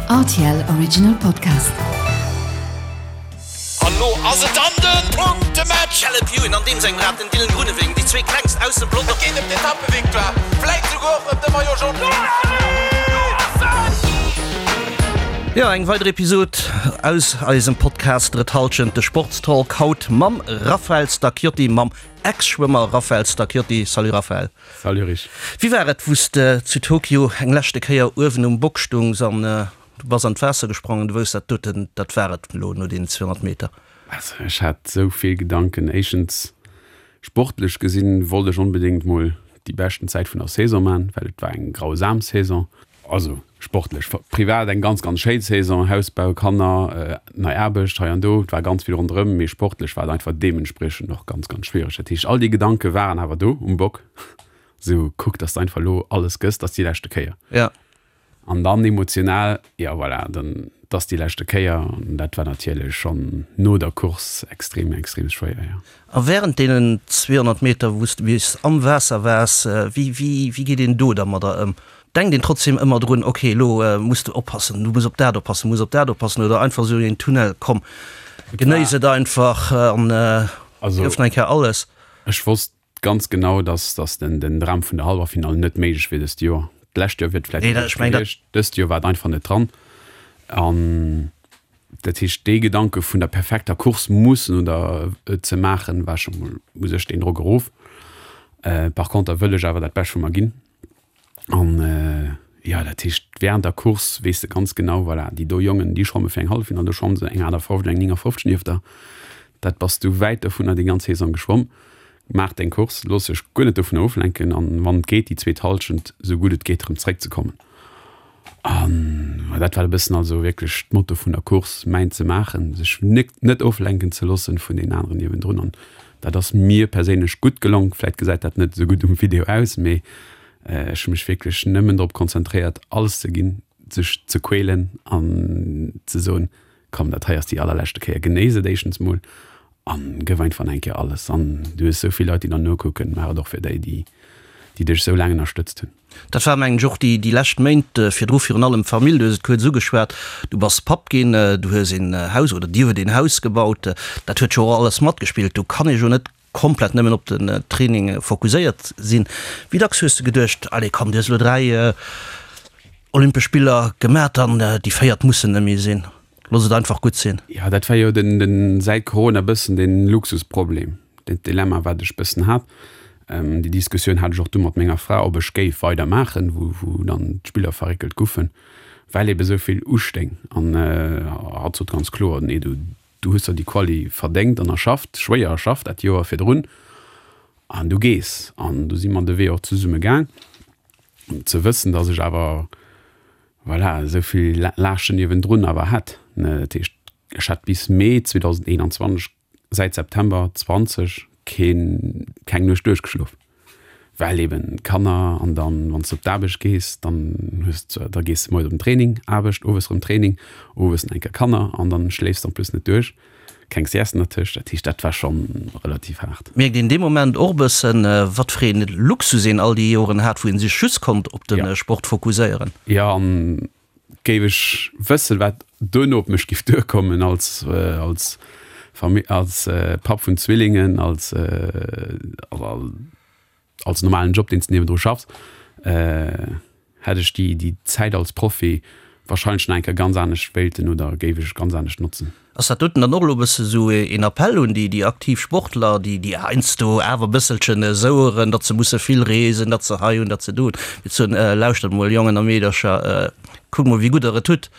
Rtl Original Podcast. An lo ass et dann den Punktematch! Caleb Ewan an deem sengem Rad, den Dylan Groenewegen, déi zwee klengst aus dem Pelotong. Et geet ëm d'Etappevictoire, vläit souguer och ëm de Maillot Jaune. Jo, eng weider Episod aus eisem Podcast Drëtt Halschent, de Sportstalk, haut mam Raphael Stacchiotti, mam Ex-Schwëmmer Raphael Stacchiotti. Salut Raphael. Salut Rich. Wéi war et, wou s de zu Tokio eng leschte Kéier uewen um Bock stungs an du bass an d'Waasser gesprongen, du wousst, dat doten, dat war et elo no deenen 200 Meter? Also ech hat esou vill Gedanken. Éischtens, sportlech gesinn, wollt ech onbedéngt mol déi beschten Zäit vun der Saison man, well et war eng grausam Saison. Also sportlech, privat eng ganz, ganz schéin Saison, Hausbau, Kanner, nei Aarbecht hei an do, et war ganz vill ronderëm, mee sportlech war et einfach deementspriechend och ganz, ganz schwiereg. Dat heescht, all déi Gedanke waren awer do um Bock, esou kuck, dass de einfach elo alles gëss, dat ass déi leschte Kéier. Ja. An dann emotional, jo voilà, dann, et ass déi leschte Kéier an dat war natierlech schonn no der Course extrem, extrem schwéier, jo. A wärend deenen 200 Meter, wou s de bis am Waasser waars, wéi, wéi, wéi geet een do dermadder ëm? Denkt een trotzdem ëmmer drun, ok, elo muss de oppassen, du muss op dat oppassen, muss op dat oppassen, oder einfach esou een Tunnel, komm, genéiss et einfach an gëff nach eng Kéier alles? Ech wosst ganz genau, dass dass den den Dram vun der Hallwerfinall net méiglech wier dëst Joer. D'lescht Joer wier et vläicht méiglech gewiescht, dëst Joer war et einfach net dran. An dat heescht, dee Gedanke vun der perfekter Course mussen oder ze maachen, war scho mol u sech deen Drock erof. Par conter wëll ech awer dat Bescht vu mer ginn. An jo, dat heescht, während der Course weess de ganz genau, voilà, déi do Jongen, déi schwamme fir eng Halleffinall, do schwamme se eng 58, eng 59 nieft der. Dat bass du wäit dovunner déi ganz Saison geschwomm. Maach deng Course, looss dech guer net dovunner oflenken an wann et geet, déi zweet Hallschent esou gutt et geet erëm zeréckzekommen. An dat war e bëssen also wierklech d'Motto vun der Course, mäin ze maachen, sech net oflenken ze loossen vun deenen aneren niewendrun. An dat ass mir perséinlech gutt gelong. Vläit gesäit dat net esou gutt um Video aus, mee ech hu mech wierklech nëmmen drop konzentréiert, alles ze ginn, sech ze quälen an ze soen, Komm, dat hei ass déi allerleschte Kéier, genéiss et éischtens mol an gëff einfach nach eng Kéier alles. An du hues esou vill Leit, déi der nokucken, maach et och fir déi, déi déi dech esou laang ënnerstëtzt hunn. Dat war, mengen ech, och déi déi lescht Méint virdru virun allem d'Famill. Du hues et kuerz ugeschwat, du bass Papp ginn, du hues een Haus oder dir huet een Haus gebaut. Dat huet jo och alles matgespillt. Do kann ee jo net komplett nëmmen op den Training fokuséiert sinn. Wéi dacks hues de geduecht, allez komm, du hues elo 3 Olympesch Spiller gemat an déi véiert mussen net méi sinn, looss et einfach gutt sinn? Jo, dat war jo den, den säit Corona bëssen den Luxusproblem, den Dilemma wat ech bëssen hat. Déi Diskussioun hat ech och du mat menger Fra, ob ech géif weider maachen, wou, wou dann d'Spiller verréckelt guffen, well ebe sou vill ustéing. An hatt sot ganz kloer, nee, du, Du hues der déi Quali verdéngt an erschafft, schwéier erschafft dat Joer virdrun an du gees. An du si mer de Wee och zesumme gaang, ze wëssen, datt ech awer, voilà, esou vill Laaschten niewendrun awer hätt. Dat heescht, ech hat bis Mee 2021, säit September 20, keen, keng Nuecht duerchgeschlof. Well eben Kanner an dann wann s de op d'Aarbecht gees, dann hues de, da gees de moies op den Training, Aarbecht, owes erëm Training, owes nach eng Kéier Kanner an dann schléifs de en plus net duerch, keng Sieste dertëscht. Dat heescht, dat war schonn relativ haart. Mierkt een dee Moment och e bëssen, wat fir een Luxus een all déi Joren hat, wou een sech just konnt op de Sport fokuséieren? Jo, an Géif ech wëssen, wat duerno op mech giff duerkommen als als Famill, als Papp vun Zwillingen, als als normalen Job, deen s de niewendru schaffs, hätt ech déi déi Zäit als Profi wahrscheinlech nach eng Kéier ganz anescht wéilten oder géif ech ganz anescht notzen. Ass dat doten dann och elo e bësse sou een Appell un déi aktiv Sportler, déi déi heiansdo awer e bësselchen soueren, datt se musse vill reesen, datt se hei hunn, datt se do hunn, fir ze soen, lauschtert mol Jongen a Meedercher, kuckt mol wéi gutt der et hutt?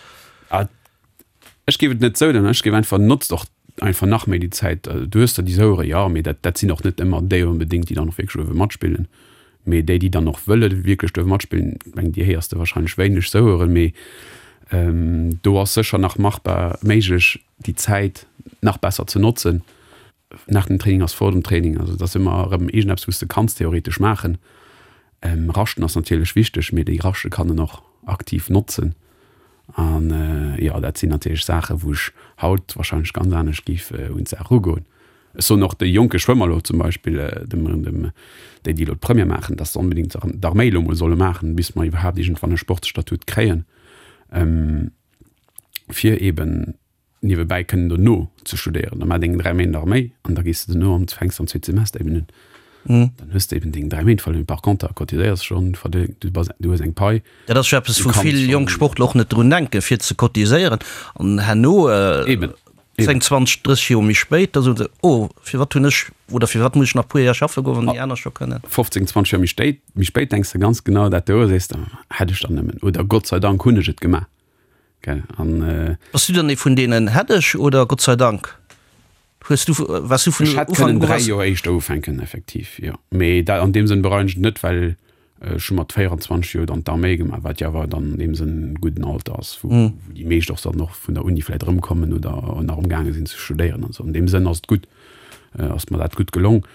Ech géif et net sou nennen, ech géif einfach, notzt och einfach nach méi déi Zäit. Du hues der déi Souere, jo, mee dat dat sinn och net ëmmer déi onbedéngt, déi dann och wierklech uewe matspillen. Mee déi, déi dann och wëlle wierklech duerf matspillen, ech mengen, déi héiers de wahrscheinlech wéineg soueren, mee do ass sécher nach machbar, méiglech, déi Zäit nach besser ze notzen. Nach dem Training ass vor dem Training, also et ass ëmmer erëm iergendeppes, wou s de kanns theoretesch maachen. Raschten ass natierlech wichteg, mee déi Raschte kann en och aktiv notzen. An jo, dat sinn natierlech Saachen, wou ech haut wahrscheinlech ganz anescht géif un d'Saach erugoen. Ech soen och de jonke Schwëmmer elo zum Beispill, dem, dem, déi, déi elo d'Première maachen, dass se onbedéngt d'Arméi elo emol solle maachen, bis mer iwwerhaapt iergendwann e Sportsstatut kréien. fir eben niewebäi kënnen dono ze studéieren. Da maach deng 3 Méint Arméi an da gees de dono an fänks am zweete Semester eben un. Dann hues de eben deng 3 Méint verluer. Par conter cotiséiers schonn, du bass, du hues eng Pai. Dat ass jo eppes, wou vill jonk Sportler och net drun denken, fir ze cotiséieren. An herno, 10, 20, 30 Joer méi spéit, da soen se, oh, firwat hunn ech oder firwat muss ech nach e puer Jar schaffe goen, wann déi aner scho kënnen. 15, 20 Joer méi spéit, méi spéit denks de ganz genau dat do a sees de, hätt ech dann nëmmen oder Gott sei Dank hunn ech et gemaach. Gell, an. Bass du dann ee vun deenen hätt ech oder Gott sei Dank? Hues du, waars du vun Ech hätt Ufank kënnen u 3 was? Joer éischter ufänken, effektiv, jo. Mee dat, an deem Sënn bereien ech et net, well ech hu mat 24 Joer dann d'Arméi gemaach, wat jo awer dann an deem Sënn e gudden Alter ass, wou wou déi meescht och dann och vun der Uni vläicht erëmkommen oder nach amgaange sinn ze studéieren an esou. An deem Sënn ass et gutt, ass mer dat gutt gelong.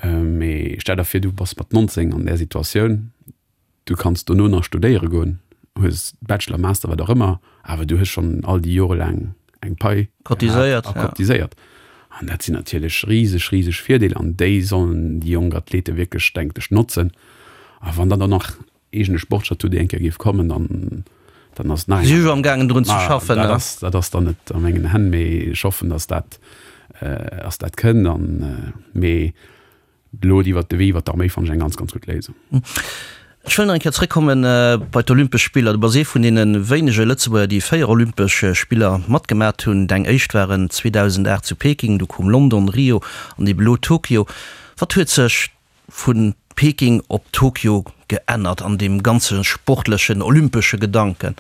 Mee stell der vir, du bass mat 19 an där Situatioun, Du kanns dono nach studéiere goen, hues Bachelor, Master, wat och ëmmer, awer du hues schonn all déi Jore laang eng Pai gehat a cotiséiert. An dat sinn natierlech riseg, riseg Virdeeler an déi sollen déi jonk Athlete wierklech, denkt ech, notzen. A wann dann och nach eegene Sportstatut eng Kéier géif kommen, dann, dann ass et nach eng. Si si jo amgaangen drun ze schaffen. Dat ass, dat ass dann net a mengen Hänn, mee ech hoffen, datt dat, datt dat kënnt. An, mee Elo iwwert de Wee iwwert d'Arméi fannen ech eng ganz, ganz gutt Léisung. Ech wëll nach eng Kéier zréckkomme bei d'Olympesch Spiller. Du bass ee vun deene wéinege Lëtzebuerger, déi 4 Olympesch Spiller matgemat hunn. Deng éischt waren 2008 zu Peking, du koum London, Rio an ebe lo Tokio. Wat huet sech vu Peking op Tokio geännert an deem ganze sportlechen, olympesche Gedanken?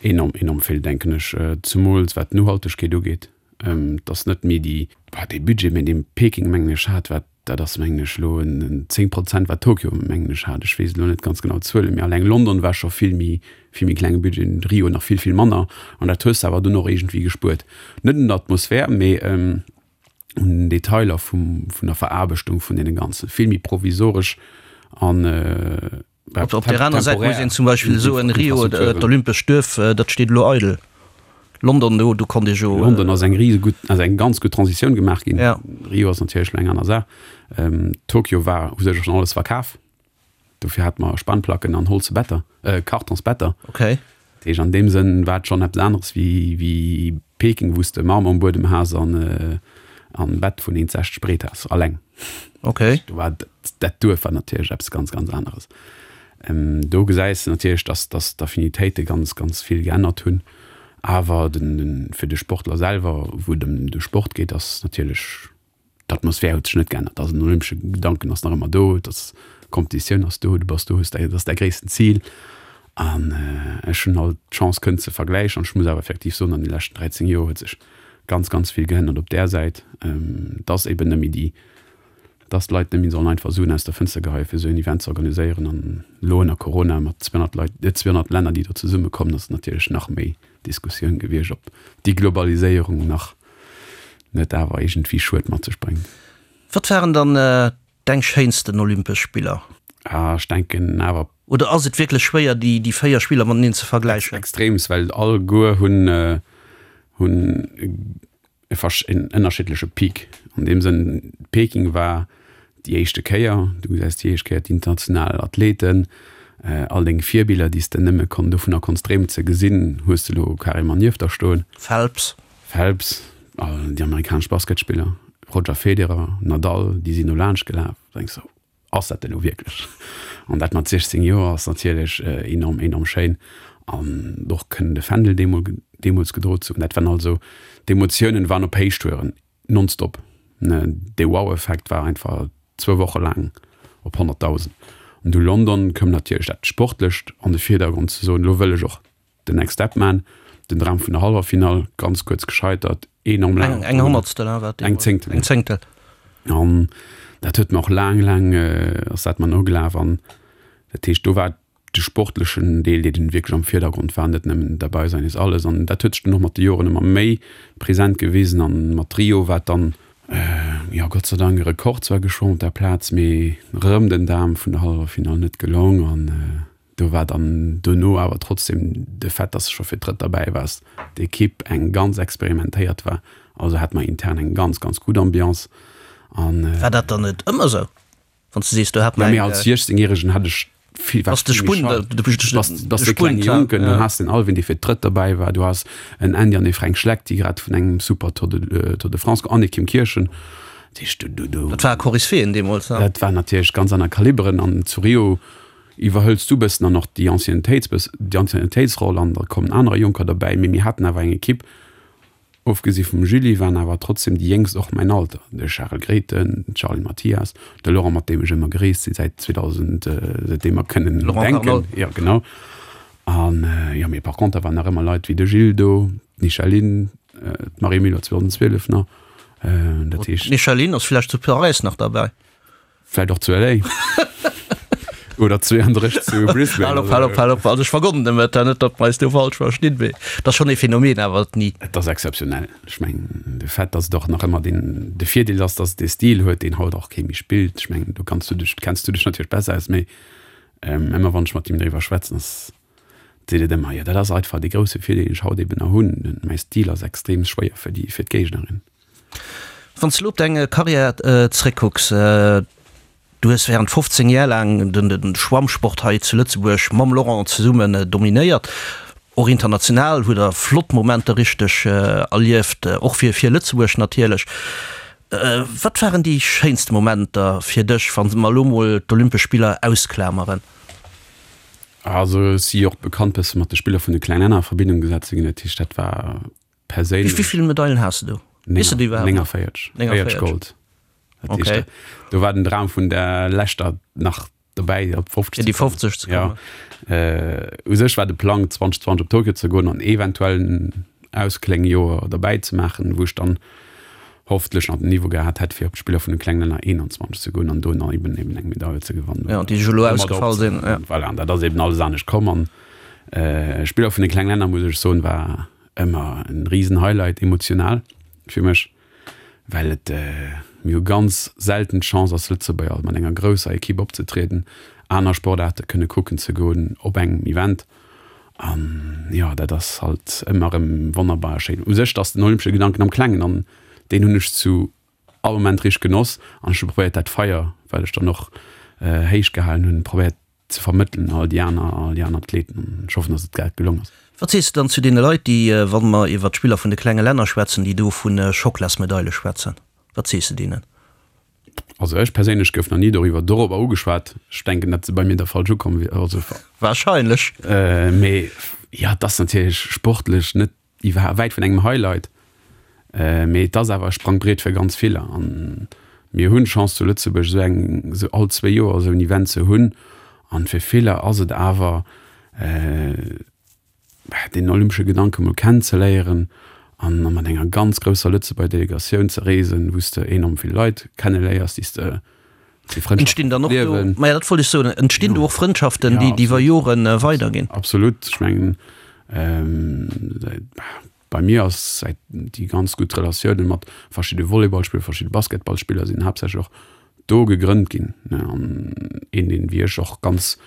Enorm, enorm vill, denken ech, zemools wat d'Nohaltegkeet ugeet. Et ass net méi déi, bah, dee Budget, mä dee Peking, mengen ech, hat, wat, dat ass, mengen ech, elo en 10 Prozent, wat Tokio, mengen ech, hat. Ech weess elo net ganz genau d'Zuelen, mä alleng London war scho vill méi, vill méi klenge Budget, Rio nach vill, vill manner. An dat hues de awer dunn och iergendwéi gespuert. Net un der Atmosphär, mä un den Detailer vum, vun der Veraarbechtung vun deene Ganzen. Vill méi provisoresch an, Op op der aner Säit muss een zum Beispill soen, Rio, d'olympescht Duerf, dat steet elo eidel. London, do do konnt ee jo. London ass eng risegutt, ass eng ganz gutt Transitioun gemaach ginn. Rio ass natierlech elo eng aner Saach. Tokio war u sech och schonn alles verkaf. Dofir hate mer Spanplacken an holze Better, Kartonsbetter. Okay. Dat heescht, an deem Sënn war et schonn eppes aneres wéi wéi Peking, wou s de Marmor um Buedem has an an Bett vun 1,60 breet has, alleng. Okay. Do war dat Duerf war natierlech eppes ganz, ganz aneres. Do gesäis de natierlech, dass dass d'Affinitéite ganz, ganz vill geännert hunn. Awer den den fir de Sportler selwer, wou et ëm de Sport geet, ass natierlech D'Atmosphär huet sech net geännert. Also den olympesche Gedanken ass nach ëmmer do, dass d'Kompetitioun ass do, du bass do, hues däi, dat ass däi gréissten Zil. An ech hunn alt d'Chance kënnen ze vergläichen an ech muss awer effektiv soen, an de leschten 13 Joer huet sech ganz, ganz vill geännert op där Säit, dass eben net méi déi, dass d'Leit net méi sollen einfach Suen aus der Fënster geheien, fir esou en Event ze organiséieren. An elo ënner Corona mat 200 Leit, 200 Länner, déi do zesummekommen, ass et natierlech nach méi Diskussioun gewiescht, ob déi Globaliséierung nach net awer iergendwéi Schued mat sech bréngt. Wat waren dann deng schéinsten Olympesch Spiller? Ah, ech denken awer. Oder ass et wierklech schwéier déi déi 4 Spiller mateneen ze vergläichen? Extreems, well alleguer hunn hunn e versch en ënnerschiddleche Peak. An deem Sënn, Peking war déi éischte Kéier, du gesäis déi éischt Kéier d'international Athleten, all deng Virbiller, déi s de nëmme kon dovunner konns dreemen ze gesinn, hues de elo carrément nieft der stoen. Phelps. Phelps, all déi amerikanesch Basketspiller, Roger Federer, Nadal, déi sinn do laanscht gelaf. Da denks de, ass dat elo wierklech? An dat mat 16 Joer ass natierlech enorm, enorm schéin. An och kënnen de Fändel deemol, deemools gedroe ze hunn, dat waren also, d'Emotiounen waren op Héichtouren, nonstop. Dee Wow-Effekt war einfach zwou Woche laang op 100.000. An du London koum natierlech dat Sportlecht an de Virdergrond, ze soen, elo wëll ech och Den Next Step Man, den Dram vun der Hallwerfinall, ganz kuerz gescheitert, enorm laang. Eng Honnertstel, hein, war Eng Zéngtel. Eng Zéngtel. An dat huet mer och laang, laang ass dat mer nogelaf. An dat heescht, do war de sportlechen Deel, dee dunn wierklech am Virdergrond war, net nëmmen dabei sein ist alles. An dat huet sech dunn och mat de Joren ëmmer méi present gewisen. An mat Rio war et dann, jo, Gott sei Dank e Rekord zwar geschwommen op der Plaz, mee rëm den Dam vun der Hallwerfinall net gelong. An Do war dann dono awer trotzdem de Fait, dass de scho fir d'drëtt derbäi waars, d'Ekipp eng ganz experimentéiert war. Also hate mer intern eng ganz, ganz gutt Ambiance an. War dat dann net ëmmer esou, wann s de sees, do hat mer eng. Jo, mee als 16 Järegen hat ech. Vill, war de Spunt, bass de klenge Jonken, dann has den Alvin, dee fir d'drëtt derbäi war, du has en Andy an e Fränk Schleck, déi grad vun engem super Tour de, Tour de France an e Kim Kirchen. Dat heescht, du, du, du. Dat war Koryphäen deemools, ne? Dat war natierlech ganz aner Kaliberen an zu Rio iwwerhëls du bëssen dann och déi Anciennetéits, déi Anciennetéitsroll an da kommen anerer Jonker derbäi, mee mir haten awer eng Ekipp, Ofgesi vum Julie waren awer trotzdem déi Jéngst och mäin Alter, de Charel Grethen, d'Charline Mathias, de Laurent mat deem ech ëmmer gereest sinn säit 2000, säitdeem mer kënnen denken. Jo genau. An jo mee par conter waren nach ëmmer Leit wéi de Gilles do, d'Micheline, d'Marie Muller 2012 nach, dat heescht. D'Micheline ass vläicht zu Paräis nach derbäi. Vläit och zu LA. Oder 32 zu Brisbane. Hal op, hal op, hal op. Also ech vergonnen dem et, net datt mer eis do falsch verstinn, mee et ass schonn ee Phänomen awer, d'Ni. Et ass exzeptionell. Ech mengen, de Fait, datt et och nach ëmmer deen, de Virdeel ass, datt et dee Stil huet, deen haut och kee méi spillt. Ech mengen, do kanns du dech, kenns du dech natierlech besser aus, mee ëmmer wann ech mat him driwwer schwätzen, ass, seet et ëmmer, jo dat ass einfach dee grousse Virdeel, deen ech haut eben nach hunn, mäi Stil ass extrem schwéier fir déi, fir d'Géignerin. Wann s de elo op deng Karriär zeréckkucks, du hues während 15 Jar laang de Schwammsport hei zu Lëtzebuerg mam Laurent zesummen dominéiert. Och international hutt der flott Momenter richteg erlieft, och fir fir Lëtzebuerg natierlech. Wat waren déi schéinste Momenter fir dech, wa mer elo mol d'Olympesch Spiller ausklameren? Also ech si jo och bekannt bësse mat de Spiller vun de klengen Länner a Verbindung gesat ze ginn, dat heescht dat war Perséinlech. Wéi vill Medailen has de do? Weess de déi iwwerhaapt nach? 49. 49 Gold. Dat heescht, okay. Do war den Dram vun der leschter nach dobäi, op 50 ze kommen. Déi 50 ze kommen. Ja. Äh, u sech war de Plang 2020 op Tokio ze goen an eventuell en Auskléngjoer derbäi ze maachen, wou ech dann hoffentlech nach den Niveau gehat hätt, fir op d'Spiller vun de klengen Länner 21 ze goen an do nach eben eben eng Medail ze gewannen. Ja, déi elo ausgefall sinn. Ja. Voilà, an dat ass eben alles anescht komm an äh, Spiller vun de klengen Länner, muss ech soen, war Ëmmer en riesen Highlight emotional fir mech, well et mir hu ganz selten d'Chance als Lëtzebuerger mat enger grousser Equipe opzetrieden, aner Sportaarte kënne kucken ze goen op engem Event an jo dat ass halt ëmmer erëm wonnerbar a schéin. U sech ass den olympesche Gedanken am Klengen an deen hunn ech zu all Moment richteg genoss an ech hu probéiert dat Feier, wat ech dann och héich gehalen hunn, probéiert ze vermëttelen un all déi aner, all déi aner Athleten an ech hoffen, dass et dat gelong ass. Wat sees de dann zu deene Leit, déi, wa mer iwwert d'Spiller vun de klenge Länner schwätzen, déi do vu Schocklasmedaile schwätzen? Wat sees de deenen? Also ech perséinlech gouf nach ni doriwwer dorobber ugeschwat. Ech denken, datt se bei mir da falsch ukomm wier, also. Wahrscheinlech. Mee jo, et ass natierlech sportlech net Iwwer wäit vun engem Highlight, mee et ass awer e Sprangbriet fir ganz viller. An mir hunn d'Chance zu Lëtzebuerg esou eng, esou all zwéi Joer esou en Event ze hunn. An fir viller ass et awer deen olympesche Gedanke mol kennenzeléieren an mat enger ganz grousser Lëtzebuerger Delegatioun ze reesen, wou s de enorm vill Leit kenneléiers, déi s de Entstinn dann och do, maja dat wollt ech soen, entstinn do och Frëndschaften, déi iwwer Jore weiderginn? Absolut, ech mengen bei mir ass säit déi ganz gutt Relatiounen mat verschidde Volleyballspiller, verschidde Basketballspiller sinn haaptsächlech och do gegrënnt ginn. An een deen wéi ech och ganz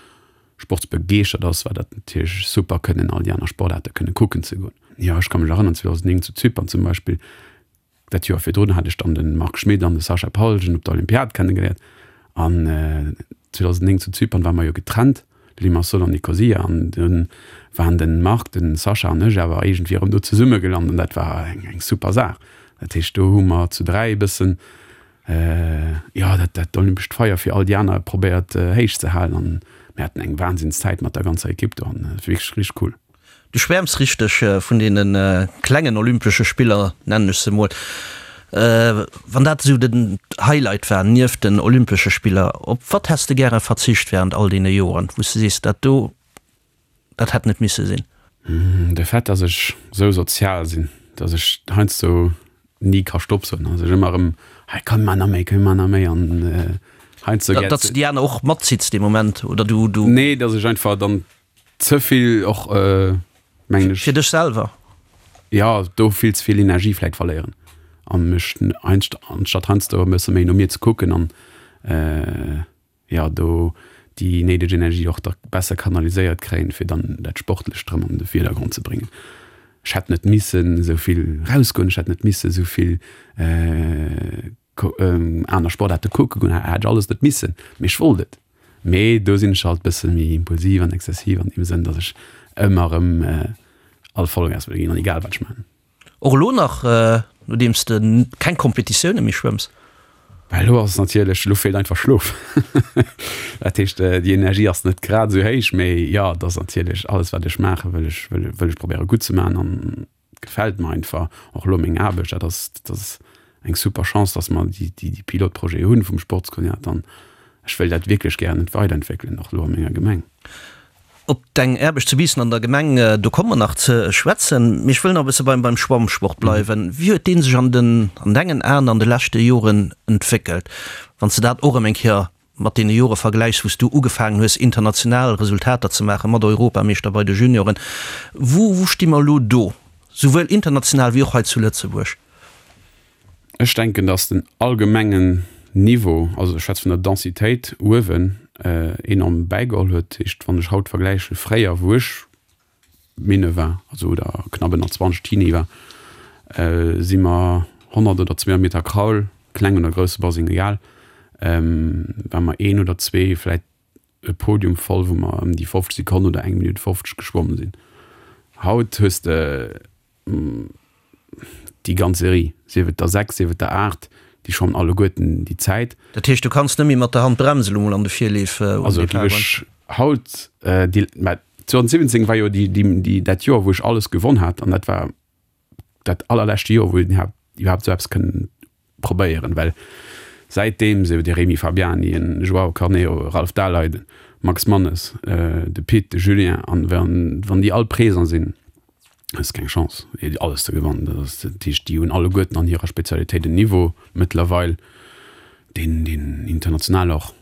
sportsbegeeschtert ass, war dat natierlech super kënnen all déi aner Sportaarte kënne kucken ze goen. Jo ech ka mech erënnern 2009 zu Zypern zum Beispill, Dat Joer virdrun hat ech dann de Marc Schmit an de Sascha Palgen op der Olympiad kennegeléiert an 2009 zu Zypern ware mer jo getrennt, Limassol an Nicosia, an dunn waren de Marc, de Sascha an ech awer iergendwéi erëm do zesumme gelant an dat war eng super Saach. Dat heescht do hu mer zu 3 e bëssen, jo, dat dat olympescht Feier fir all déi aner probéiert héich ze halen an mir haten eng Wahnsinnszäit mat der ganzer Ekipp do an et war wierklech richteg cool. Du schwäerms richteg vun deene klengen Olympesche Spiller, nennen ech se mol. Wann dat esou den Highlight war nieft den Olympesche Spiller, op wat häss de gäre verzicht während all deene Joren, wou s de sees, dat do, dat hätt net misse sinn? De Fait, dass ech esou sozial sinn, dass ech heiansdo ni ka Stopp soen, dass ech ëmmer erëm, hei komm mar nach méi, komm mar nach méi an heiansdo. Datt s de déi aner och matzitts dee Moment, oder du, du? Nee, dass ech einfach dann Ze vill och, mengen ech. Fir dech selwer? Jo, do vill ze vill Energie vläit verléieren a mech anstatt heiansdo e bësse méi no mir ze kucken an, jo, do déi néideg Energie och da besser kanaliséiert kréien, fir dann dat Sportlecht erëm an de Virdergrond ze bréngen. Ech hätt net missen esou vill rausgoen, ech hätt net misse esou vill aner Sportaarte kucke goen, hätt ech alles net missen, mee ech wollt et. Mee do sinn ech halt bësse méi impulsiv an exzessiv an deem Sënn, datt ech ëmmer erëm all Vollgas wëll ginn an egal wat ech maachen. Och elo nach, nodeems de keng Kompetitioune méi schwëmms? Well elo ass et natierlech, elo feelt einfach Schlof. Dat heescht, déi Energie ass net grad esou héich, mee jo, et ass natierlech alles wat ech maache wëll ech wëll ech probéiere gutt ze maachen an gefält mer einfach. Och elo meng Aarbecht, dat ass dat ass eng super Chance, datt mer déi déi déi Pilotprojete hunn vum Sportskoordinator an ech wëll dat wierklech gären weiderentwéckelen, och elo a menger Gemeng. Op deng Aarbecht zu Biissen an der Gemeng, do komme mer nach ze schwätzen. Mee ech wëll nach e bësse beim beim Schwammsport bleiwen. Wéi huet dee sech an den an dengen Aen an de leschte Joren entwéckelt, wann s de dat och erëm eng Kéier mat deene Jore vergläichs, wou s du ugefaangen hues, international Resultater ze maachen, mat Europameeschter bei de Junioren? Wou wou sti mer elo do, souwuel international wéi och hei zu Lëtzebuerg? Ech denken, datt den allgemengen Niveau, also ech schwätze vun der Densitéit uewen, enorm bäigeholl huet. Dat heescht, wann ech haut vergläiche fréier, wou ech Minne war, also oder knapp ënner 20 Teenie war, si mer 100 oder 200 Meter Kraul, kleng oder grousse Baseng, egal, war mer een oder zwee, vläit e Podium voll, wou mer ëm déi 50 Sekonnen oder eng Minutt 50 geschwomm sinn. Haut hues de déi ganz Serie, sief et der 6, sief et der 8, déi schwammen alleguerten déi Zäit. Dat heescht, du kanns net méi mat der Hand bremsen elo mol an de Virleef um Also Depart géif ech haut déi, mä 2017 war jo déi, déi, déi, dat Joer wou ech alles gewonn hat an dat war dat allerleschte Joer wou een iwwerhaapt esou eppes kënnen probéieren, well säitdeem sou de Rémi Fabiani, en Joao Carneiro, e Ralph Daleiden, Max Mannes, de Pit, de Julien an wann déi all présent sinn, hues keng Chance alles ze gewannen. Dat ass dat heescht, déi hunn alleguerten an hirer Spezialitéit en Niveau mëttlerweil, deen deen international och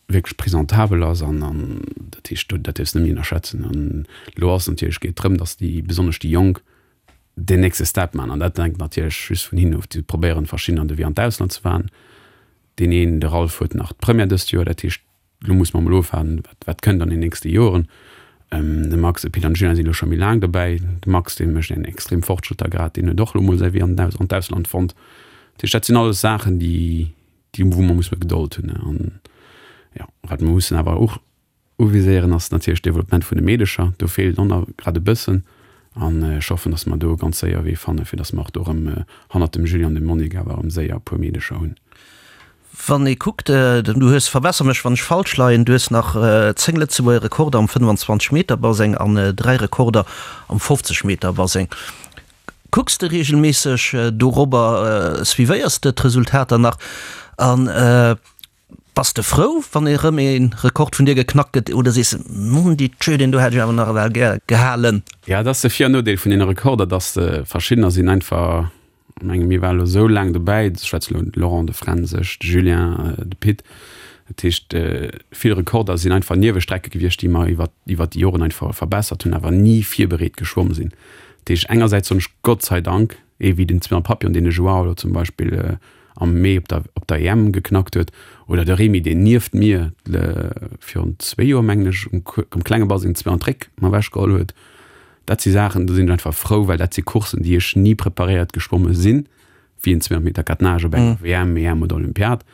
wierklech presentabel ass an an dat heescht, do dat dierfs de net méi ënnerschätzen. An elo ass natierlech geet drëm, datt déi besonnesch déi Jonk deen nächste Step maachen an dat hänkt natierlech just vun hinnen of. Déi probéieren verschiddener an de Wee an d'Ausland ze fahren. Deen een, de Ralph, huet nach d'Première dëst Joer, dat heescht elo musse mer emol ofwaarden, wat wat kënnt an den nächste Joren. De Max, de Pit an de Julien sinn elo scho méi laang dobäi. De Max, dee mécht eng extrem Fortschrëtter grad, deen huet och elo mol säi Wee an den an d'Ausland fonnt. Dat heescht dat sinn alles Saachen, déi déi wou mer musse Gedold hunn an jo wat mer mussen awer och Uviséieren ass natierlech d'Developpement vun de Meedecher. Do feelt och nach grad e bëssen. An ech hoffen, datt mer do ganz séier e Wee fannen, fir datt mer och do erëm hannert dem Julie an dem Monique awer erëm séier e puer Meedecher hunn. Wann ee kuckt, du hues, verbesser mech wann ech falsch leien, du hues nach 10 Lëtzebuerger Rekorder am 25 Meter Baseng an 3 Rekorder am 50 Meter Baseng. Kucks de reegelméisseg dorobber, suivéiers de d'Resultater nach an Bass de frou, wann erëm ee Rekord vun dir geknackt gëtt, oder sees de, Mon Dieu, deen do hätt ech awer nach ewell gär gehalen? Ja, et ass de Vir an Nodeel vun deene Rekorder, dass se verschiddener sinn einfach, ech menge mir waren elo esou laang dobäi, ech schwätze elo de Laurent, de Fränz, ech, de Julien, de Pit, dat heescht vill Rekorder sinn einfach Niewestrecke gewiescht, déi mer iwwer iwwer déi Joren einfach verbessert hunn, awer ni virbereet geschwomm sinn. Dat heescht engersäits soen ech Gott sei Dank, ee wéi den Zwilling Papillon, deen de Joao elo zum Beispill am Mee op der op der EM geknackt huet, oder de Remy, deen nieft mir virun zwéi Joer, mengen ech, um um klenge Baseng zwee an d'Réck mer ewechgeholl huet. Dat si Saachen, do sinn ech einfach frou, well dat si Courssen, déi ech ni preparéiert geschwomme sinn, wéi en 200 Meter Catenage op enger WM, EM oder Olympiad,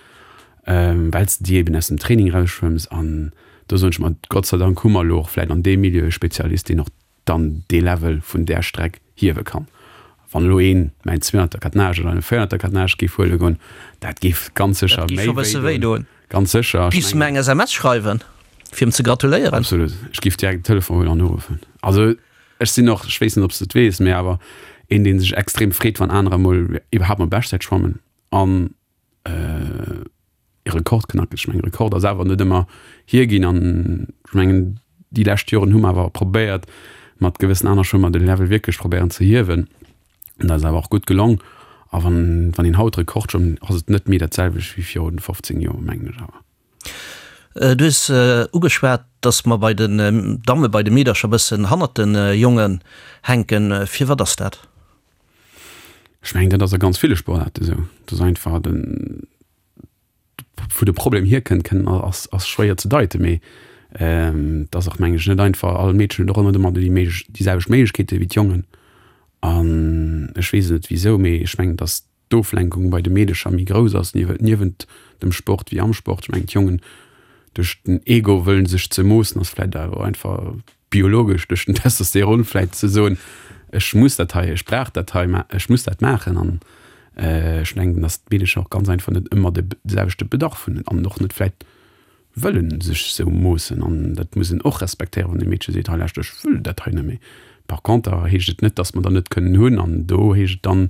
well s de déi eben aus dem Training erausschwëmms. An do soen ech mer, Gott sei Dank hu mer elo och vläicht an deem Milieu e Spezialist, deen och dann dee Level vun där Streck hiewe kann. Wann elo een mäin 200er Catenage oder en 400er Catenage géif huele goen, dat géif ganz sécher méi wéi doen. Ganz sécher. Giffs de mer eng SMS schreiwen, fir em ze gratuléieren? Absolut. Ech géif direkt den Telefon huelen an uruffen. Also ech sinn och, ech weess net, ob s de et weess, mee awer een, dee sech extrem freet, wann anerer emol iwwerhaapt mol Beschtzäit schwammen an e Rekord knacken. Ech mengen, Rekord ass awer net ëmmer hierginn an ech mengen, déi lescht Joren hu mer awer probéiert, mat gewëssen aner Schwëmmer de Level wierklech probéieren ze hiewen. An dat ass awer och gutt gelong. A wann, wann een haut Rekord schwëmmt, ass et net méi dat selwecht wéi virun 15 Joer, mengen ech awer. Du hues ugeschwat, datt mer bei den Damme, bei de Meedercher e bëssen hannert de Jongen hänken. Firwat ass dat? Ech mengen, dat ass a ganz ville Sportaarte esou. Dat ass einfach den, wou de Problem hierkënnt, kënn ass, ass schwéier ze deiten, mee et ass och, mengen ech, net einfach. All Meedchen huet och ëmmer ëmmer déi Méiglech, déi selwecht Méiglechkeete wéi d'Jongen. An ech weess et net wisou, mee ech mengen, datt d'Oflenkung bei de Meedecher méi grouss ass, niewent dem Sport wéi am Sport. Ech mengen, d'Jongen. Duerch den Ego wëllen sech ze moossen ass vläit awer einfach biologesch duerch den Testosteron vläit ze soen, ech muss dat hei, ech brauch dat hei, ech muss dat maachen. An ech mengen, datt d'Meedecher och ganz einfach net ëmmer de selwechte Bedarf hunn an och net vläit wëllen sech sou moossen. An dat muss een och respektéieren, wann e Meedche seet, hei lauscht, ech wëll dat hei net méi. Par conter heescht et net, datt mer der net kënnen hunn. An do heescht et dann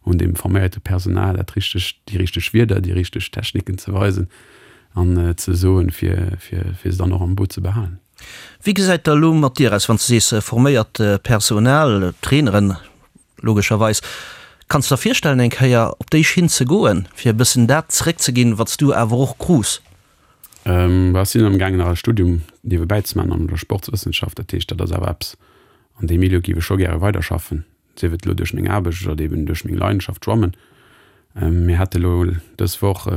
un deem forméierte Personal dat richteg, déi richteg Wierder, déi richteg Techniken ze weisen an ze soen, fir, fir, fir se dann och am Boot ze behalen. Wéi gesäit da elo mat dir aus, wann s de sees forméiert Personal, Traineren logescherweis, kanns de der virstellen eng Kéier op déi Schinn ze goen, fir e bëssen dat zeréckzeginn, wat s du awer och krus? Ech sinn amgaangen nach e Studium niewebäi ze maachen an der Sportswëssenschaft. Dat heescht, dat ass awer eppes, an deem Milieu géif ech scho gäre weiderschaffen. sief et elo duerch meng Aarbecht oder eben duerch meng Leidenschaft Schwammen. Mir hate elo dës Woch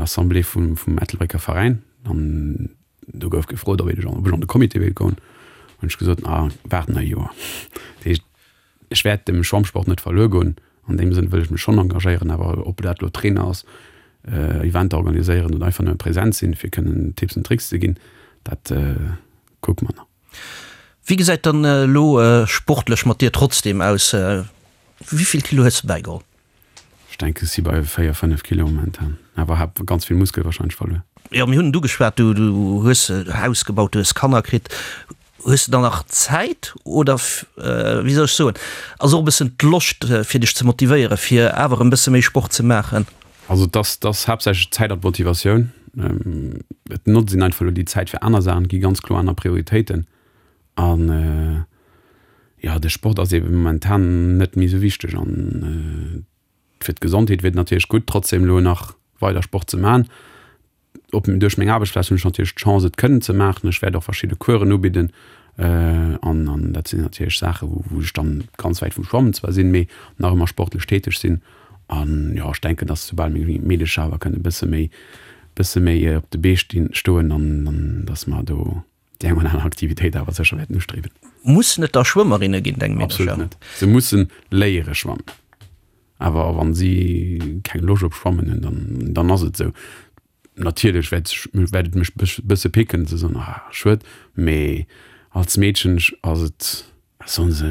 Assemblée vum vum Ettelbrécker Veräin an do gouf gefrot, ob ech ob ech an de Comité wéilt goen. Hunn ech gesot, ah waart nach e Joer. Dat heescht, ech wäert dem Schwammsport net verluer goen. An deem Sënn wëll ech mech schonn engagéieren, awer ob dat elo Trainer ass, Eventer organiséieren oder einfach nëmme present sinn, fir kënnen Tipps an Tricks ze ginn, dat kucke mer nach. Wéi gesäit dann elo sportlech mat dir trotzdem aus? Wéivill Kilo hues de bäigeholl? Ech denken ech si bei 4, 5 Kilo momentan, awer hab ganz vill Muskel wahrscheinlech verluer. Jo, mir hunn et ugeschwat, du hues e Haus gebaut, du hues Kanner kritt. Hues de dann nach Zäit oder wéi soll ech soen, ass och e bëssen d'Loscht fir dech ze motivéieren, fir awer e bësse méi Sport ze maachen? Also et ass, et ass haaptsächlech d'Zäit an d'Motivatioun. Et notzt een einfach elo déi Zäit fir aner Saachen, et gi ganz kloer aner Prioritéiten. An jo, de Sport ass eebe momentan net méi esou wichteg. An fir d'Gesondheet wier et natierlech gutt, trotzdem elo nach weider Sport ze maachen. Op duerch meng Aarbechtsplaz hunn ech natierlech d'Chance et kënnen ze maachen. Ech wäert och verschidde Coursen ubidden an an dat sinn natierlech Saache wou wou ech dann ganz wäit vum Schwammen zwar sinn, mee nach ëmmer sportlech täteg sinn. An jo, ech denken, datt soubal meng Meedecher awer kënnen e bësse méi bësse méi op de Bee stinn stoen, dann dann datt mer do déi eng oder aner Aktivitéit awer sécher wäerten ustriewen. Mussen et da Schwëmmerinne ginn, deng Meedercher? Absolut net. Se mussen léiere schwammen. Awer wann si keng Loscht op Schwammen hunn, dann, dann ass et esou. Natierlech wäert ech, wäert et mech bësse picken, ze soen, ah schued, mee als Meedchen ass et, solle se,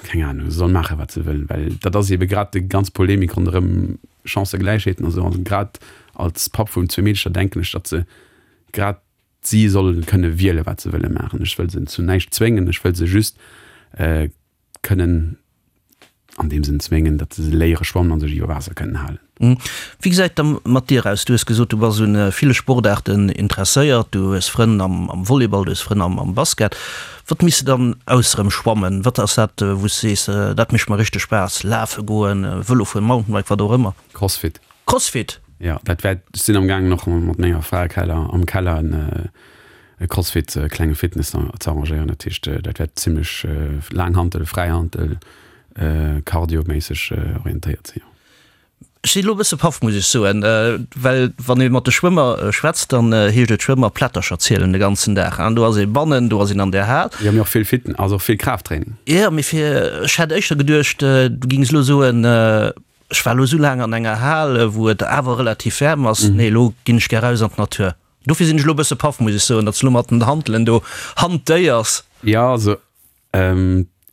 keng Ahnung, se solle maachen, wat se wëllen, well dat ass eebe grad déi ganz Polemik ronderëm Chancëgläichheeten a sou. An grad als Papp vun zwee Meedecher denken ech, datt se grad si solle kënne wielen, wat se wëlle maachen. Ech wëll se zu näischt zwéngen, ech wëll se just kënnen an deem Sënn zwéngen, datt se léiere schwammen a sech iwwer Waasser kënnen halen. Wéi gesäit da mat dir aus? Du hues gesot, du bass un ville Sportaarten interesséiert, du hues Frënn am Volleyball, du hues Frënn am Basket. Wat méchs de dann ausserem Schwammen? Wat ass dat, wou s de sees, dat mécht mer richteg Spaass? Lafe goen, Vëlo fueren, Mountainbike, wat och ëmmer? Crossfit. Crossfit? Jo, dat wäert, ech sinn am gaangen och mat menger Fra Keller, am Keller en e Crossfit, e klenge Fitness ze arrangéieren. Dat heescht, dat wäert zimlech Laanghantel, Fräihantel, Cardio-méisseg orientéiert sinn, jo. Ech sinn elo e bësse paff, muss ech soen, well wann ee mat de Schwëmmer schwätzt, dann heescht et Schwëmmer Plättercher zielen de ganzen Dag. An do ass ee bannen, do ass een an der Hal. Jo, mee och vill Fitness, also och vill Kraafttraining. Jo, mee fir, ech hätt éischter geduecht, du gings elo soen, ech war elo esou laang an enger Hal, wou et awer relativ waarm ass, nee, elo ginn ech gär raus an d'Natur. Dofir sinn ech elo e bësse paff, muss ech soen, datt s de elo mat den Hantelen do hantéiers. Jo, also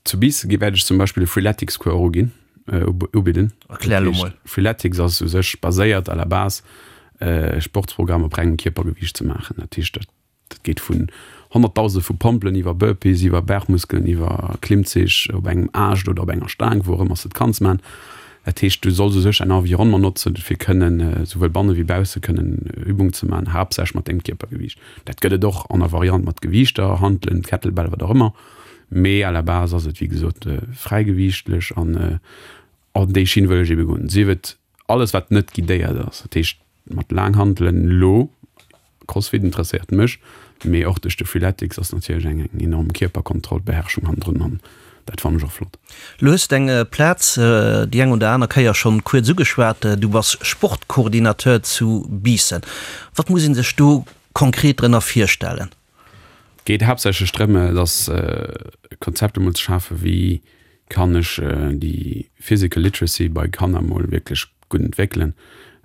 zu Biissen gi wäert ech zum Beispill e Freeletics-Cours och uginn, ubidden. Erklär elo mol. Freeletics ass u sech baséiert à la base e Sportsprogramm op rengem Kierpergewiicht ze maachen. Dat heescht, dat Dat geet vun Honnertdausende vu Pompelen iwwer Burpees, iwwer Bergmuskelen, iwwer Klimmzich op engem Aascht oder op enger Staang, wou och ëmmer s de et kanns man. Dat heescht, du solls u sech däin Environnement notzen, fir kënnen esouwuel banne wéi bausse kënnen Übungen ze man, haaptsächlech mat dengem Kierpergewiicht. Dat gëtt et och an der Variant mat Gewiichter, Hantelen, Kettlebell, wat och ëmmer, mee à la base ass et wéi gesot fräigewiichtlech an an déi Schinn wëll ech ebe goen. Sief et alles wat net guidéiert ass, dat heescht mat Laanghantelen elo, Crossfit interesséiert mech, mee och duerch de Freeletics ass natierlech eng eng enorm Kierperkontroll, Beherrschung hannendrun an dat fannen ech och flott. Lo hues de eng Plaz déi eng oder aner Kéier schonn kuerz ugeschwat, du bass Sportcoordinateur zu Biissen. Wat muss een sech do konkret drënner virstellen? Geet haaptsächlech drëm, dass e Konzept emol ze schafen, wéi kann ech déi physical literacy bei Kanner emol wierklech gutt entwéckelen.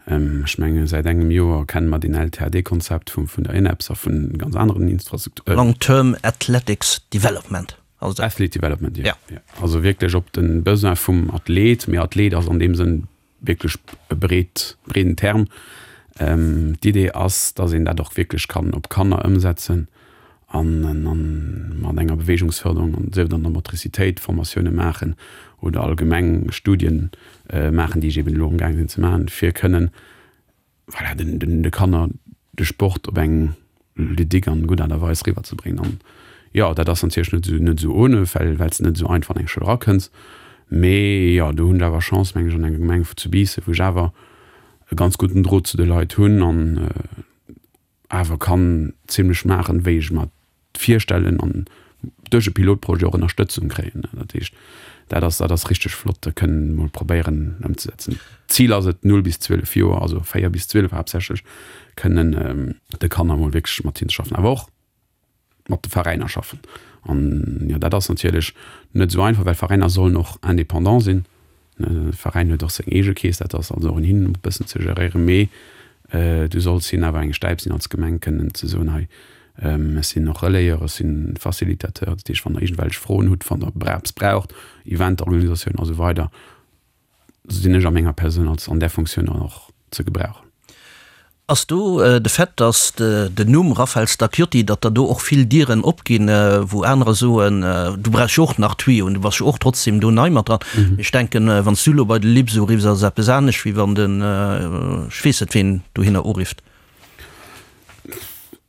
Ech menge säit engem Joer kenne mer deen LTAD-Konzept vum vun der ENEPS a vun ganz aneren Infrastrukturen. Long Term Athletics Development ass dat. Athlete Development, jo. Ja. Also wierklech op de Besoin vum Athlet, mee Athlet ass an deem Sënn wierklech e breet, breeden Term. D'Idee ass, dass een dat och wierklech kann op Kanner ëmsetzen an mat enger Beweegungsförderung, an sief et an der Motricitéit, Formatioune maachen oder allgemeng Studien maachen, déi ech eben elo amgaang sinn ze maachen, fir kënnen, voilà, den, den, de Kanner de Sport op eng ludique an gutt Aart a Weis riwwer ze bréngen. An jo, dat ass natierlech net esou, net esou ohne, well, well s de net esou einfach an eng Schoul erakënns. Mee jo, do hunn ech awer Chance, meng ech, an enger Gemeng zu Biissen, wou ech awer e ganz gudden Drot zu de Leit hunn an awer kann zimlech maachen, wéi ech mer virstellen an duerch e Pilotprojet och Ënnerstëtzung kréien. Dat heescht, dat ass, dat ass richteg flott, dat kënnen emol probéieren ëmzesetzen. D'Zil ass et, 0 bis 12 Joer, also 4 bis 12 haaptsächlech, kënnen de Kanner emol wierklech mat hinne ze schaffen, awer och mat de Veräiner schaffen. An jo, dat ass natierlech net esou einfach, well Veräiner sollen och indépendant sinn. De Veräin huet och seng eege Keess, dat ass also och un hinnen e bëssen ze geréieren, mee du solls hinnen awer eng Stäip sinn als Gemeng, kënnen ze soen, hei ech sinn och Relayeur, ech sinn Facilitateur, dat heescht wann der iergendwelch Froen hutt, wann der eppes braucht, Eventorganisatioun a sou weider, sinn ech a menger Persoun als an där Funktioun dann och ze gebrauchen. Ass do de Fait, datt den Numm Raphaël Stacchiotti, datt der do och vill Dieren opginn, wou anerer soen, du brauchs jo och nach Tuyauxen, du bass jo och trotzdem do nei mat dran. Mee ech denken, wann s du elo bei de Libs uriffs, ass et eppes anescht, wéi wann den, ech weess net ween, dohinner urifft.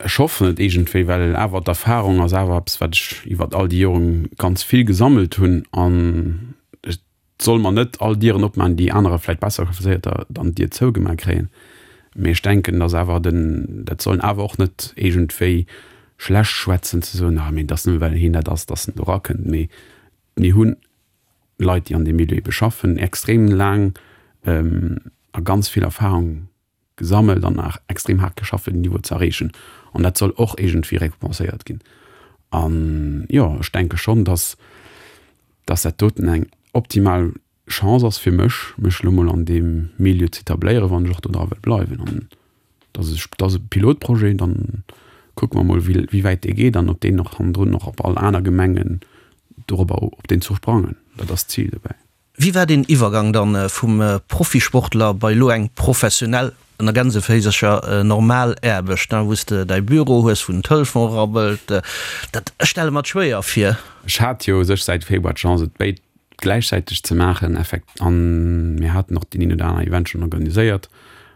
Ech hoffen et iergendwéi, well awer d'Erfahrung ass awer eppes, wat ech iwwert all déi Joren ganz vill gesammelt hunn an et soll mer net all Dieren opmaachen, déi anerer vläicht besser qualifizéierter dann d'Dier zougemaach kréien. Mee ech denken, dass awer den, dat sollen awer och net iergendwéi schlecht schwätzen, ze soen, ah mee et ass nëmme well hien dat ass, dass en do erakënnt. Mee mir hunn Leit, déi an deem Milieu ebe schaffen, extrem laang a ganz vill Erfahrung gesammelt an nach extrem haart geschafft fir den Niveau ze erreechen an dat soll och iergendwéi récompenséiert ginn. An jo, ech denke schonn, dass dass dat doten eng optimal Chance ass fir mech, mech elo mol an deem Milieu ze etabléieren, wann ech och do dra wëll bleiwen. An dass ech, dat ass e Pilotprojet, dann kucke mer mol wéi wéi wäit dee geet an ob deen och hannendrun och op all aner Gemengen dorobber op deen Zuch sprangen. Dat ass d'Zil dobäi. Wéi war deen Iwwergang dann vum Profisportler bei elo eng professionell, ënner Gänseféisercher, normal Aarbecht, wou s de däi Büro hues, wou den Telefon rabbelt? Dat, ech stelle mer et schwéier vir. Ech hat jo u sech säit Februar d'Chance et béid gläichzäiteg ze maachen, effekt, an mir haten och deen een oder aner Event schonn organiséiert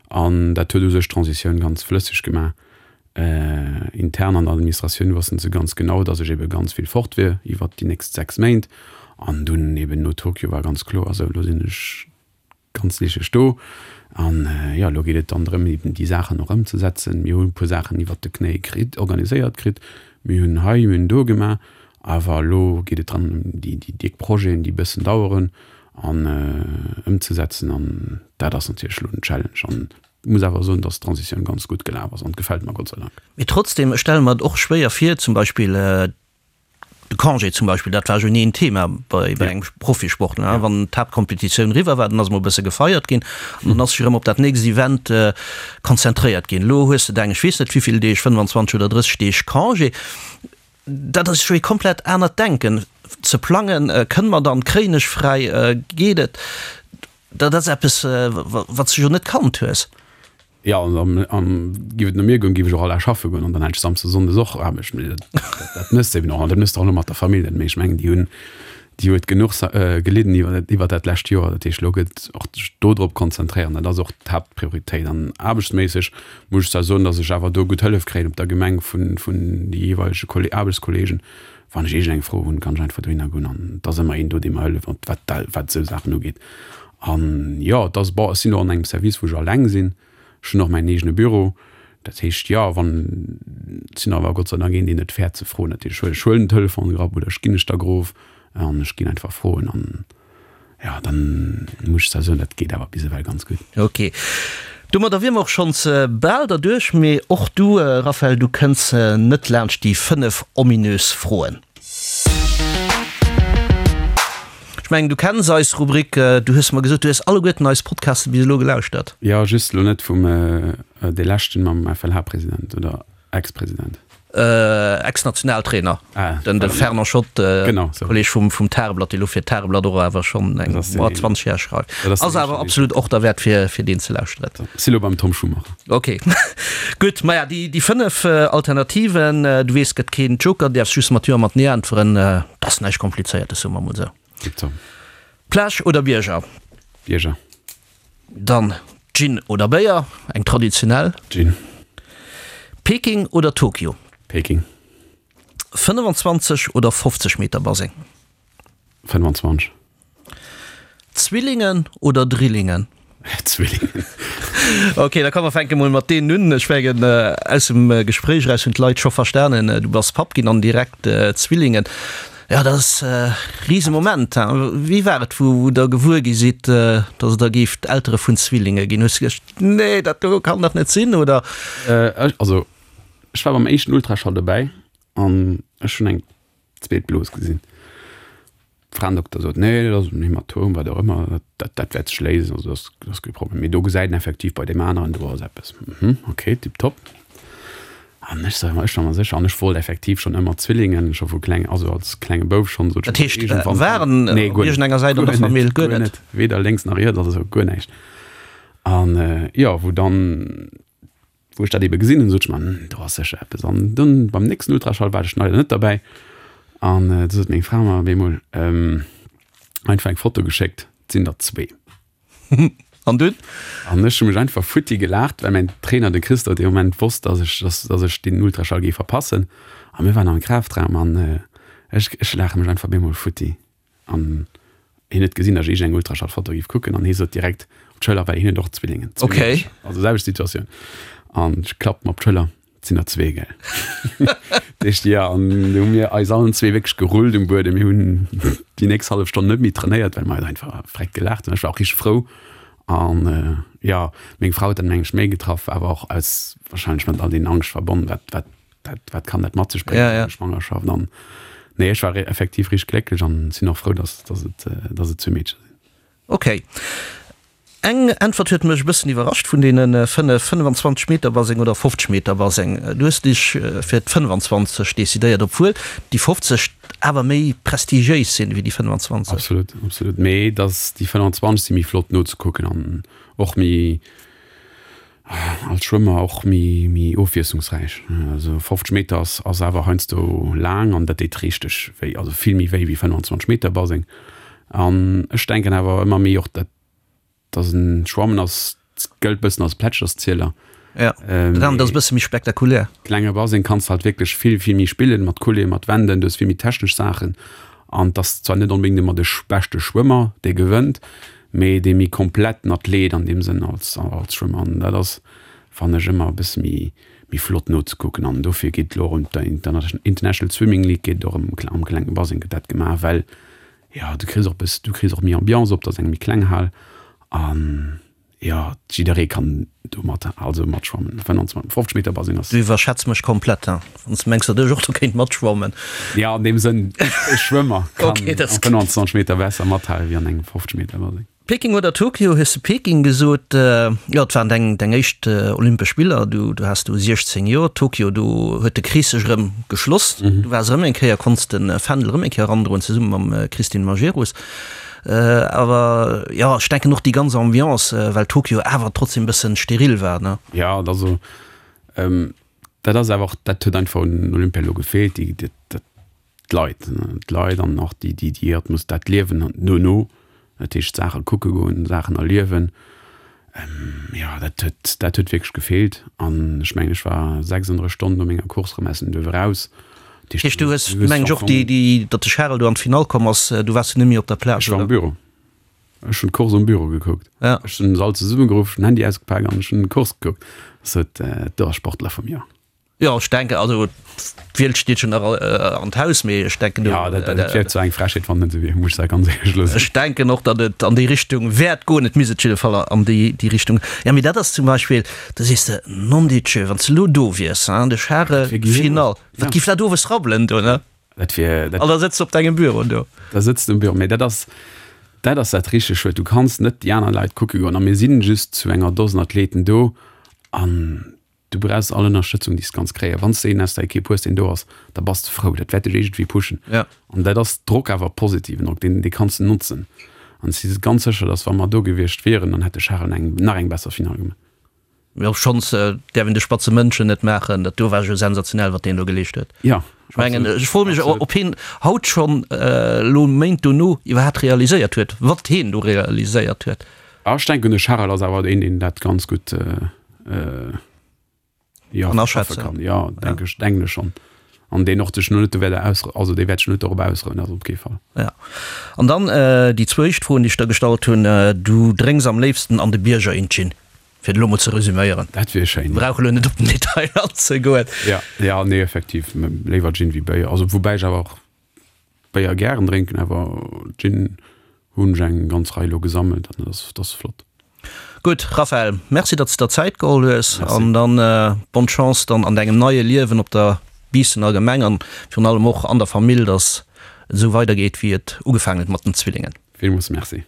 an dat huet u sech d'Transitioun ganz flësseg gemaach. Intern an der Administratioun wossten se ganz genau, dass ech ebe ganz vill fort wier iwwert déi nächst 6 Méint. An dunn eben no Tokio war ganz kloer, esou elo sinn ech ganz licheg do. An jo, elo geet et dann drëm, eben déi Saachen och ëmzesetzen. Mir hunn e puer Saachen iwwert de Knéi kritt, organiséiert kritt. Mir hunn hei, mir hunn do gemaach. Awer elo geet et dran, déi déck Projeten, déi e bëssen daueren, an ëmzesetzen. An dat ass natierlech elo den Challenge. An Muss awer soen, dass d'Transitioun ganz gutt gelaf ass an gefält mer Gott sei Dank. Mee trotzdem, ech stelle mer et och schwéier vir, zum Beispill de Congé zum Beispill, dat war jo ni en Thema bei engem Profisportler. Wann d'Haaptkompetitioun eriwwer war, dann ass emol e bësse gefeiert ginn an dann ass sech erëm op dat nächst Event konzentréiert ginn. Elo hues de deng, ech weess net wéivill Deeg, 25 oder 30 Deeg Congé. Dat ass jo ee komplett anert Denken. Ze plangen, kënne mer dann, kréien ech fräi, geet et? Dat ass eppes, wat s de jo net kannt hues. Jo, an giff et no mir goen, giff ech och all Dag schaffe goen an dann hätt ech Samsdes, Sonndes och Aarbecht. Mee dat mëss de eben och an dat mëss de och elo mat der Famill net. Mee ech mengen, déi hunn, déi huet genuch gelidden iwwer dat lescht Joer. Dat heescht, elo gëtt och sech do drop konzentréieren. Dat ass och d'Haaptprioritéit. An aarbechtsméisseg muss ech zwar soen, datt ech awer do gutt Hëllef kréien op der Gemeng vun de jeeweilege Aarbechtskolleegen, Wann ech iergend eng Fro hunn, kann ech einfach dohinner goen an et ass ëmmer een do, dee mer hëlleft, wat, wat, wat esou Saachen ugeet. An jo, et ass, bon, ech sinn och an engem Service, wou ech alleng sinn. Ech hunn och mäin eegene Büro. Dat heescht, jo, wann, ech sinn awer Gott sei Dank een, deen net fäert ze froen. Dat heescht, ech huelen den Telefon grapp oder ech ginn ech da grof an ech ginn einfach froen an Jo, dann muss ech zwar soen, dat geet awer bis ewell ganz gutt. Ok, domadder wier mer och schonns bal derduerch. Mee och du, Raphaël, du kënns net laanscht déi 5 ominös Froen. Ech mengen, du kenns eis Rubrik. Du hues mer gesot, du hues alleguerten eis Podcaste bis elo gelauschtert. Jo, just elo net vum dee leschten mam FLH-President oder Ex-President. Ex-Nationaltrainer, den de Fernand Schott, Kolleg vum Tageblatt, dee lo fir d'Tageblatt och awer schonn eng 20 Jar schreift. Ass awer absolut och derwäert fir deen ze lauschteren. Si lo beim Tom Schumacher. Ok, gutt. Maja, déi 5 Alternativen, du weess, gëtt keen Joker, däerfs just mat Jo a mat Nee äntweren. Dat ass näischt Komplizéiertes, soe mer mol esou. Tiptop. Plage oder Bierger? Bierger. Dann Gin oder Béier, eng traditionell? Gin. Peking oder Tokio? Peking. 25 oder 50 Meter Baseng? 25. Zwillingen oder Drillingen? Zwillingen. Ok, da komm mer fänke mol mat deenen un. Ech mengen, aus dem Gespréich eraus hunn d'Leit scho verstanen, du bass Papp ginn an direkt Zwillingen. Jo, dat ass e Risemoment. Wéi war et, wou Der gewuer gi sidd, datt Der géift Eltere vun Zwillinge ginn? Hues du geduecht, Nee, dat do kann dach net sinn, oder? Also, ech war beim éischten Ultraschall dobäi an ech hunn eng zweet Blos gesinn. Fraendokter sot, Nee, dat ass en Hämatom, wat och ëmmer, dat, dat wäert sech léisen, also dat ass, dat ass kee Problem. Mee do gesäit en effektiv bei deem aneren, do ass eppes. Mhm, okay, tipptopp. An ech sot, ech war mer sécher, an ech wollt effektiv schonn ëmmer Zwillingen, scho vu kleng, also als klenge Bouf schonn, sot ech, Dat heescht, iergendwann waren Nee, op guer net, iergendenger Säit an guer der net, Famill guer guer net? net, weder lénks nach riets, also guer näischt. An jo, wou dann Wou ech dat ebe gesinn hunn, sot ech mer, Hm, do ass sécher eppes. An dunn beim nächsten Ultraschall war ech leider net derbäi. An du sot meng Fra mer op eemol einfach eng Foto geschéckt, et sinn der zwee. An dunn? An ech hu mech einfach futti gelaacht, well mäin Trainer, de Christophe, dee Moment wosst, dass ech, dass, dass ech deen Ultraschall géif verpassen. A mir waren am Kraftraum an ech, ech laache mech einfach op eemol futti. An hien huet gesinn, datt ech iergend eng Ultraschallfoto géif kucken an hie sot direkt op d'Schëller, well hien huet och Zwillingen. Okay. Also selwecht Situatioun. An ech klappt mer op d'Schëller, et sinn der zwee, gell. Dat heescht, jo, an du hu mir eis allen zwee wierklech gerullt um Buedem. Mir hunn déi nächst hallef Stonn net méi trainéiert, well mer eis einfach vreckt gelaacht hunn. Ech war och richteg frou. An jo, meng Frau huet dat meng ech méi getraff, awer och aus wahrscheinlech mat all deenen Angscht verbonnen, wat, wat dat, wat kann dat mat sech bréngen, ja, ja. Schwangerschaft an nee, ech war effektiv richteg glécklech an sinn och frou, dass, dass et, äh, dass et zwee Meedcher sinn. Okay. Eng Äntwert huet mech e bëssen iwwerrascht vun deene 5, 25 Meter Baseng oder 50 Meter Baseng. Du hues dech fir d'25 decidéiert, obwuel déi 50 awer méi prestigiéis sinn wéi déi 25. Absolut, absolut. Mee dass déi 25 si méi flott nozekucken an och méi, Als Schwëmmer och méi méi ofwiesslungsräich. Also 50 Meter ass ass awer heiansdo laang an dat deet richteg wéi, also vill méi wéi wéi 25 Meter Baseng. An ech denken awer ëmmer méi och dat dass en Schwammen ass gëllt bëssen als Plätscherszieler. Ja, dat anert ass e bësse méi spektakulär. Klenge Baseng kanns de halt wierklech vill vill méi spillen, mat Coulée, mat Wänden, du hues vill méi technesch Saachen an 't ass zwar net onbedéngt ëmmer de beschte Schwëmmer dee gewënnt, mee dee méi kompletten Athlet an deem Sënn als als Schwëmmer an dat ass fannen ech ëmmer e bësse méi méi flott nozekucken an dofir geet elo erëm d'International International Swimming League geet och am am klenge Baseng gëtt dat gemaach well jo du kriss och e bëss du kriss och méi Ambiance op, dat ass eng méi kleng Hal an Jo, jidderee kann do mat, also matschwammen. 25, 50 Meter Baseng ass. Du iwwerschätz mech komplett, hein, wann s de mengs, datt ech och do kéint matschwammen. Jo, an deem Sënn, e Schwëmmer kann am 25 Meter Waasser mathale wéi an engem 50 Meter Baseng. Peking oder Tokio, hues de Peking gesot. Jo, et waren deng, deng éischt Olympesch Spiller, du, du has do 16 Joer. Tokio, do huet de Krees sech erëm geschloss. Du waars erëm eng Kéier, konns de Fändel erëm eng Kéier erandroen, zesumme mam Christine Majerus. Awer jo, ech denken och déi ganz Ambiance, well Tokio awer trotzdem e bëssen steril war, ne? Jo, et ass esou. Dat ass awer och, dat huet einfach un Olympia elo gefeelt, déi, dat, d'Leit, d'Leit an och déi, déi, déi Atmos, dat Liewen dono, dat heescht Saache kucke goen, Saachen erliewen. Jo, dat huet, dat huet wierklech gefeelt. An ech mengen, ech war 36 Stonnen no menger Course erëm aus dem Duerf eraus. Dat heescht, du hues, mengen ech, och déi, déi, datt de Charel do an d'Finall komm ass, du waars du net méi op der Plaz, Ech war am Büro. Ech hunn d'Course am Büro gekuckt. Ja. Ech hunn se all zesummegeruff, ech hunn den Handy ausgepak an ech hunn d'Course gekuckt. Sot, do ass Sportler vum Joer. Jo, ech denken, also d'Wiel steet jo nach an d'Haus, mee ech denken do. Jo, dat dat wier zwar eng Frechheet, wann et net esou wier, muss ech da ganz éierlech elo soen. Ech denken och, datt et an déi Richtung wäert goen. Et misst et jidde Fall an déi déi Richtung. Jo, mee dat ass zum Beispill, da sees de, nondidjö, wann s de elo do wiers, hein, de Charel, Finall, wat giff dat owes rabbelen do, ne? Dat wier, dat. An da sëtz de op dengem Büro do. Da sëtz de um Büro, mee dat ass. Dat ass dat richteg Schued. Du kanns net déi aner Leit kucke goen a mir sinn just zu enger Dosen Athleten do an du brauchs all Ënnerstëtzung, déi s de kanns kréien. Wann s de een aus der Ekipp hues, deen do ass, da bass de frou. Dat wäert dech iergendwéi pushen. Ja. An dat ass Drock, awer positiven Drock, deen, dee kanns de notzen. An ech si ganz sécher, datt wa mer do gewiescht wieren, dann hätt de Charel eng, nach eng besser Finall gemaach. Jo, schonns däerf een de spatze Mënschen net maachen. Dat do war jo sensationell, wat deen do geleescht huet. Ja, Ech mengen, ech froe mech, ob hien haut schonn, elo Méint dono, iwwerhaapt realiséiert huet, wat hien do realiséiert huet. Ah, ech denken, de Charel ass awer een, deen dat ganz gutt jo, Kann schaffe aschätzen. kann. Jo, denke ech, denken ech schonn. An deen och sech net do wäert aus, also dee wäert sech net dorop ausrouen, dat op kee Fall. Ja. An dann déi zweet Fro, déi ech der gestallt hunn, Du drénks am léifsten an de Bierger een Gin, fir et elo mol ze resüméieren. Dat wier schéin. Brauch elo net op den Detail anzegoen. Ja, ja, nee, effektiv, léiwer Gin wéi Béier. Also woubäi ech awer och Béier gären drénken, awer Gin hunn ech eng ganz Rei elo gesammelt an dat ass, dat ass flott. Gutt, Raphaël, merci datt s de der Zäit geholl hues Merci. an dann bonne Chance dann an dengem neie Liewen op der Biissener Gemeng an virun allem och an der Famill, datt et esou weidergeet wéi et ugefaangen huet mat den Zwillingen. Villmools Merci.